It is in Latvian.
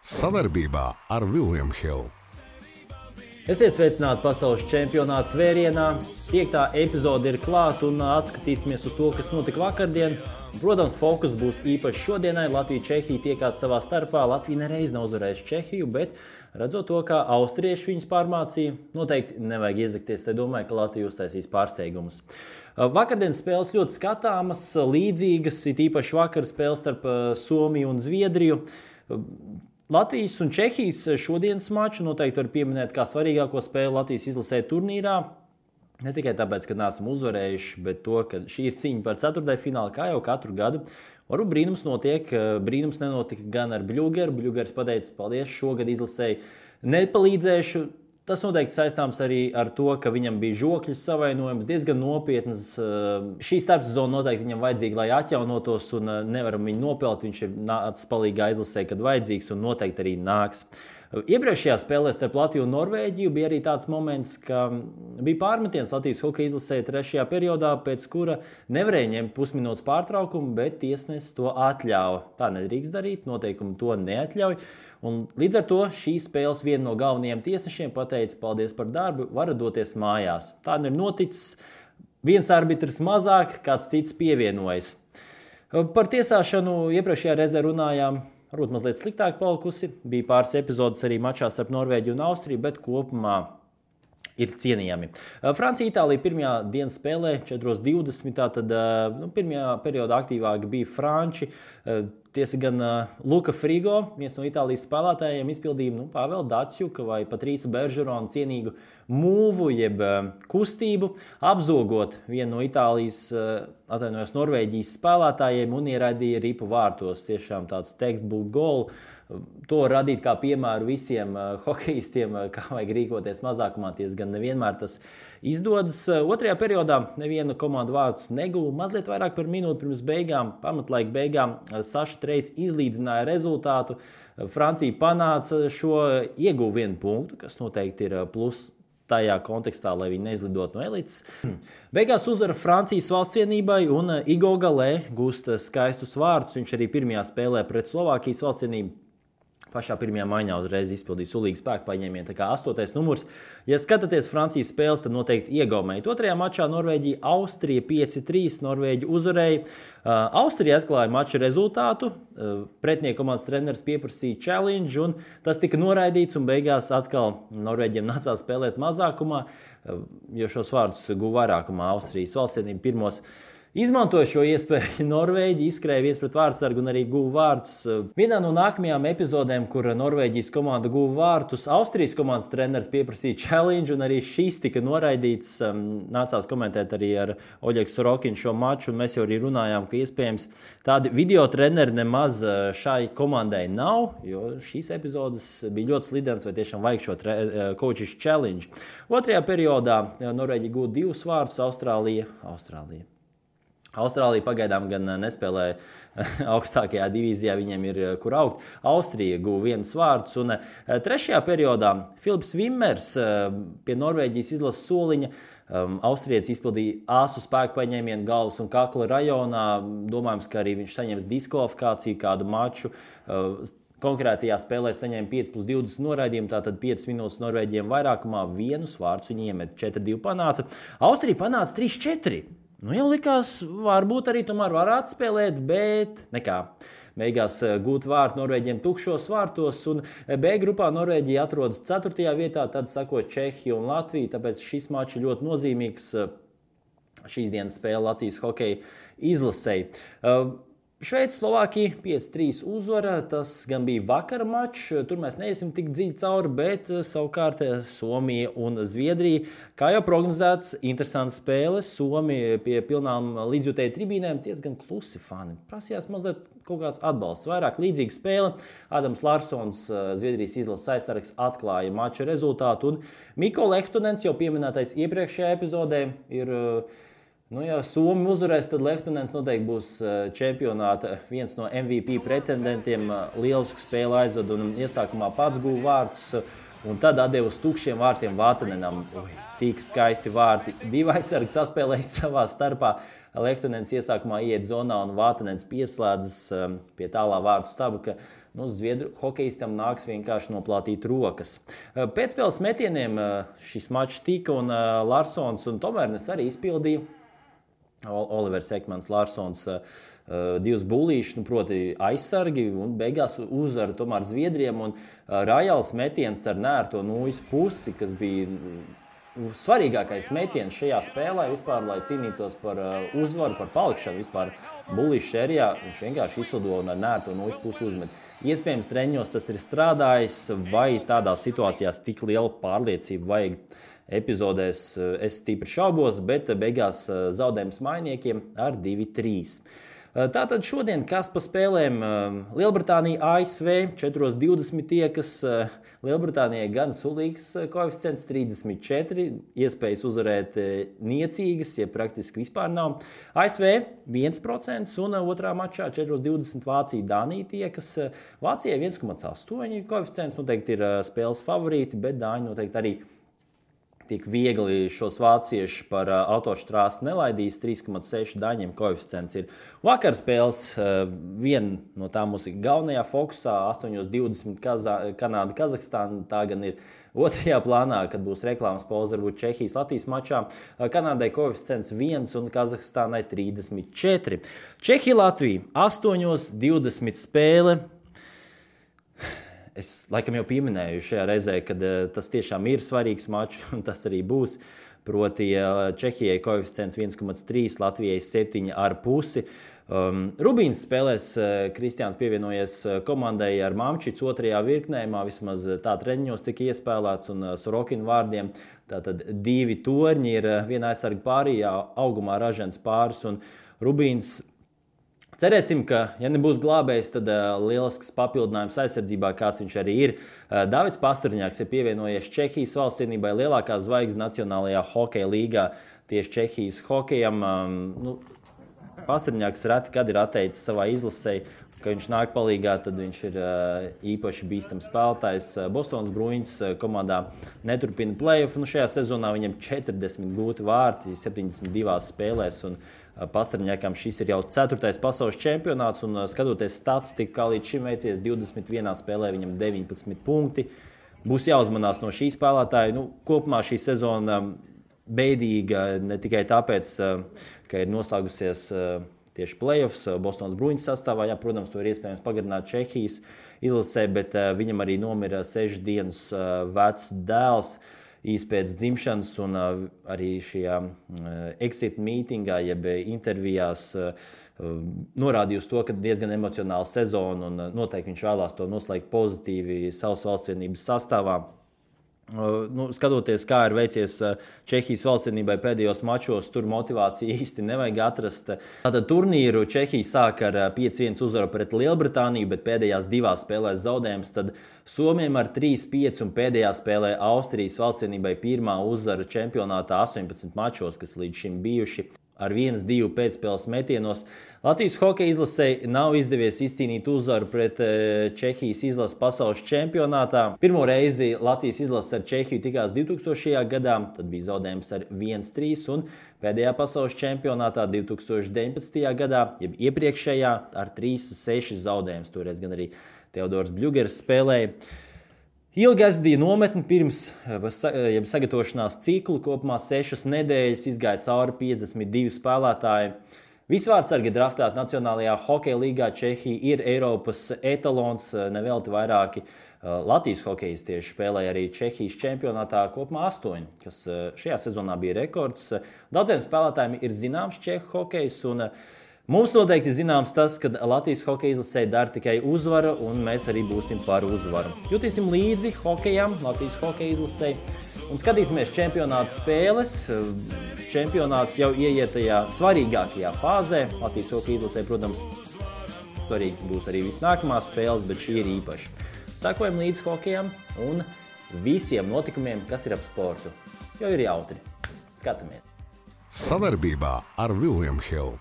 Savarbībā ar William Hill. Esiet sveicināti pasaules čempionāta vērienā. 5. epizode ir klāta un atskatīsimies uz to, kas notika vakardien. Protams, fokus būs īpaši šodienai. Latvija-Čehija tiekās savā starpā. Latvija nereiz nav uzvarējusi Čehiju, bet redzot to, kā austrieši viņus pārmācīja, noteikti nevajag iezakties. Te domāju, ka Latvija uztaisīs pārsteigumus. Vakardienas spēles ļoti skatāmas, līdzīgas, it īpaši vakar spēles starp Somiju un Zviedriju. Latvijas un Čehijas šodienas maču noteikti var pieminēt kā svarīgāko spēli Latvijas izlasē turnīrā. Ne tikai tāpēc, ka neesam uzvarējuši, bet to, ka šī ir cīņa par ceturtdaļfinālu, kā jau katru gadu. Varbūt brīnums notiek, brīnums nenotika gan ar Bļugeru. Bļugers pateica, paldies, šogad izlasēji nepalīdzēšu. Tas noteikti saistāms arī ar to, ka viņam bija žokļa savainojums, diezgan nopietnas. Šī starpsezona noteikti viņam vajadzīga, lai atjaunotos, un nevaram viņu nopelt. Viņš ir nācis palīgā izlasē, kad vajadzīgs, un noteikti arī nāks. Iepriekšējā spēlē starp Latviju un Norvēģiju bija arī tāds moments, ka bija pārmetiens Latvijas hokeja izlasē 3. periodā, pēc kura nevarēja ņemt pusminūtes pārtraukumu, bet tiesnesis to atļāva. Tā nedrīkst darīt, noteikumi to neatļauj. Un līdz ar to šīs spēles viena no galvenajiem tiesnešiem pateica, paldies par darbu, varat doties mājās. Tā ir noticis. Viens arbitrs mazāk, kāds cits pievienojas. Par tiesāšanu iepriekšējā reizē runājām. Varbūt mazliet sliktāk palikusi. Bija pāris epizodes arī mačā starp Norvēģiju un Austriju, bet kopumā ir cienījami. Francija-Itālija pirmajā dienas spēlē 4:20. Tad pirmajā periodā aktīvāk bija franči. Tiesa gan Luka Frigo, viens no Itālijas spēlētājiem, izpildīja Pāvela Datsjuka vai Patrīsa Beržerona cienīgu mūvu, jeb kustību, apzogot vienu no Itālijas, Norvēģijas spēlētājiem un ieraidīja ripu vārtos. Tiešām tāds textbook goal. To var radīt kā piemēru visiem hokeistiem, kā vajag rīkoties mazākumā. Tiesa gan nevienmēr tas izdodas. Otrajā periodā neviena komanda vārdus neguva. Mazliet vairāk par minūti pirms beigām, pamatlaika beigām, Saša Trejs izlīdzināja rezultātu. Francija panāca šo, ieguva 1 punktu, kas noteikti ir plus tajā kontekstā, lai viņi neizlidot no elites. Beigās uzvara Francijas valstsvienībai un Igo Galē gūst skaistus vārdus. Viņš arī pirmajā spēlē pret Slovākijas valstsvienību pašā pirmajā maiņā uzreiz izpildīja sulīgu spēku paņēmienu, tā kā 8. numurs. Ja skatāties Francijas spēles, tad noteikti iegaumēja. Otrajā mačā Norvēģija Austrija 5-3, Norvēģi uzvarēja. Austrija atklāja mača rezultātu, pretinieku komandas treneris pieprasīja challenge, un tas tika noraidīts, un beigās atkal Norvēģiem nācās spēlēt mazākumā, jo šos vārdus guva vairākumā Austrijas valstsienība pirmos. Izmantoja šo iespēju Norvēģi, izskrēja viens pret vārdsargu un arī guva vārdus. Vienā no nākamajām epizodēm, kur Norvēģijas komanda guva vārdus, Austrijas komandas treneris pieprasīja challenge, un arī šis tika noraidīts. Nācās komentēt arī ar Oļegu Sorokinu šo maču, un mēs jau arī runājām, ka iespējams tādi video treneri nemaz šai komandai nav, jo šīs epizodes bija ļoti slidenas, vai tiešām vajag šo coaches challenge. Otrajā periodā Norvēģija guva 2 vārdus, Austrālija pagaidām gan nespēlē augstākajā divīzijā, viņiem ir kur augt. Austrija guva 1 vārdus, un 3. periodā Filips Vimmers pie Norvēģijas izlases soliņa. Austrietis izpildīja āsu spēku paņēmienu galvas un kakla rajonā. Domājams, ka arī viņš saņems diskvalifikāciju kādu maču. Konkrētajā spēlē saņēma 5+20 noraidījumu, tātad 5 minūtes Norvēģiem vairākumā, 1 vārds viņi iemet, 4-2 panāca. Austrija panāca 3-4. Jau likās, varbūt arī tomēr varētu spēlēt, bet nekā. Beigās gūt vārtu Norvēģiem tukšos vārtos, un B grupā Norvēģija atrodas 4. vietā, tad sako Čehija un Latvija, tāpēc šis mačs ir ļoti nozīmīgs šīs dienas spēle Latvijas hokeja izlasei. Šveice, Slovākija 5-3 uzvara, tas gan bija vakara mačs, tur mēs neiesim tik dziļi cauri, bet savukārt Somija un Zviedrija, kā jau prognozēts, interesants spēles. Somija pie pilnām līdzjutēju tribīnēm, diezgan klusi fani. Prasījās mazliet kaut kāds atbalsts, vairāk līdzīga spēle. Adams Larsons, Zviedrijas izlases aizsargs, atklāja mača rezultātu, un Mikko Lehtonens, jau pieminētais iepriekšējā epizodē, ir ja Somi uzvarēs, tad Lehtonens noteikti būs čempionāta viens no MVP pretendentiem. Lielisku spēli aizved un iesākumā pats guva vārdus, un tad atdeva uz tukšiem vārtiem Vātanenam. Tik skaisti vārti. 2 aizsargi saspēlēja savā starpā. Lehtonens iesākumā iet zonā un Vātanens pieslēdzas pie tālā vārtu staba, ka Zviedru hokeistam nāks vienkārši noplātīt rokas. Pēcspēles metieniem šis mačs tika un Larsons un Tomērnes arī izpildīja. Olivers Ekmans, Larsons, divas bullīšas, proti aizsargi un beigās uzvara tomēr Zviedriem un Rajals metiens ar nērto nūjas pusi, kas bija svarīgākais metiens šajā spēlē vispār, lai cīnītos par uzvaru, par palikšanu vispār bullīšu sērijā. Viņš vienkārši izlido un ar nērto nūjas pusi uzmet. Iespējams, treņos tas ir strādājis, vai tādās situācijās tik liela pārliecība vajag epizodēs, es stipri šaubos, bet beigās zaudējums mainiekiem ar 2-3. Tātad šodien kas pa spēlēm Lielbritānija, ASV 4:20 tiekas. Lielbritānijai gan sulīgs koeficients 34, iespējas uzvarēt niecīgas, ja praktiski vispār nav. ASV 1% un otrā mačā 4:20 Vācija, Dānija tiekas. Vācijai 1,8 koeficients, noteikti ir spēles favorīti, bet Dāņi noteikti arī tik viegli šos vāciešus par autoštrāsi nelaidīs. 3,6 Daņiem koeficients ir. Vakar spēles viena no tām mums ir galvenajā fokusā 8:20 Kanāda, Kazahstāna. Tā gan ir otrajā plānā, kad būs reklāmas pauze, varbūt Čehijas, Latvijas mačā. Kanādai koeficients 1 un Kazahstānai 34. Čehija, Latvija 8:20 spēle. Es laikam jau pieminēju šajā reizē, ka tas tiešām ir svarīgs mačs, un tas arī būs. Proti Čehijai koeficients 1,3, Latvijai 7,5. Rubīns spēlēs, Kristiāns pievienojies komandai ar Mamčicu otrajā virknējumā, vismaz tā treniņos tika iespēlēts, un Sorokina vārdiem. Tātad 2 torņi ir viena aizsarga pārījā, augumā ražens pāris, un Rubīns. Cerēsim, ka, ja nebūs glābējs, tad lielisks papildinājums aizsardzībā, kāds viņš arī ir. Davids Pastrņāks ir pievienojies Čehijas valstsienībai, lielākā zvaigzne Nacionālajā hokeja līgā tieši Čehijas hokejam. Pastrņāks reti, kad ir atteicis savā izlasē, ka viņš nāk palīgā, tad viņš ir īpaši bīstams spēlētājs. Bostonas Bruins komandā neturpina play-off. Šajā sezonā viņam 40 gūti vārti 72 spēlēs. Un Pastrņākam šis ir jau 4. pasaules čempionāts. Un skatoties statistiku, kā līdz šim veicies 21 spēlē, viņam 19 punkti. Būs jāuzmanās no šī spēlētāja. Kopumā šī sezona beidīga ne tikai tāpēc, ka ir noslēgusies tieši play-offs Bostonas Bruins sastāvā. Jā, protams, to ir iespējams pagarināt Čehijas izlasē, bet viņam arī nomira 6 dienas vecs dēls īsi pēc dzimšanas, un arī šajā exit mītingā, jeb intervijās norādīja uz to, ka diezgan emocionāla sezona, un noteikti viņš vēlās to noslēgt pozitīvi savas valstsvienības sastāvā. Skatoties, kā ir veicies Čehijas valstsienībai pēdējos mačos, tur motivāciju īsti nevajag atrast. Tātad turnīru Čehija sāk ar 5-1 uzvaru pret Lielbritāniju, bet pēdējās 2 spēlēs zaudējums. Tad Somiem ar 3-5 un pēdējā spēlē Austrijas valstsienībai pirmā uzvara čempionātā 18 mačos, kas līdz šim bijuši. Ar 1-2 pēcspēles metienos. Latvijas hokeja izlasei nav izdevies izcīnīt uzvaru pret Čehijas izlases pasaules čempionātā. Pirmo reizi Latvijas izlase ar Čehiju tikās 2000. gadā, tad bija zaudējums ar 1-3, un pēdējā pasaules čempionātā 2019. gadā, jeb iepriekšējā, ar 3-6 zaudējums. Toreiz gan arī Teodors Bļugers spēlēja. Ilgi aizvadīja nometni pirms sagatavošanās ciklu, kopumā 6 nedēļas, izgāja cauri 52 spēlētāji. Visvārdsargi draftēti Nacionālajā hokeja līgā. Čehija ir Eiropas etalons, nevelti vairāki Latvijas hokejistieši spēlēja arī Čehijas čempionātā, kopumā 8, kas šajā sezonā bija rekords. Daudziem spēlētājiem ir zināms čehu hokejs, un mums noteikti zināms tas, ka Latvijas hokeja izlasē dara tikai uzvara, un mēs arī būsim par uzvaru. Jutīsim līdzi hokejam, Latvijas hokeja izlasē, un skatīsimies čempionāta spēles. Čempionāts jau ieiet tajā svarīgākajā fāzē. Latvijas hokeja izlasē, protams, svarīgs būs arī viss nākamās spēles, bet šī ir īpaši. Sekojam līdzi hokejam un visiem notikumiem, kas ir ap sportu. Jo ir jautri. Skatamies! Savarbībā ar William Hill.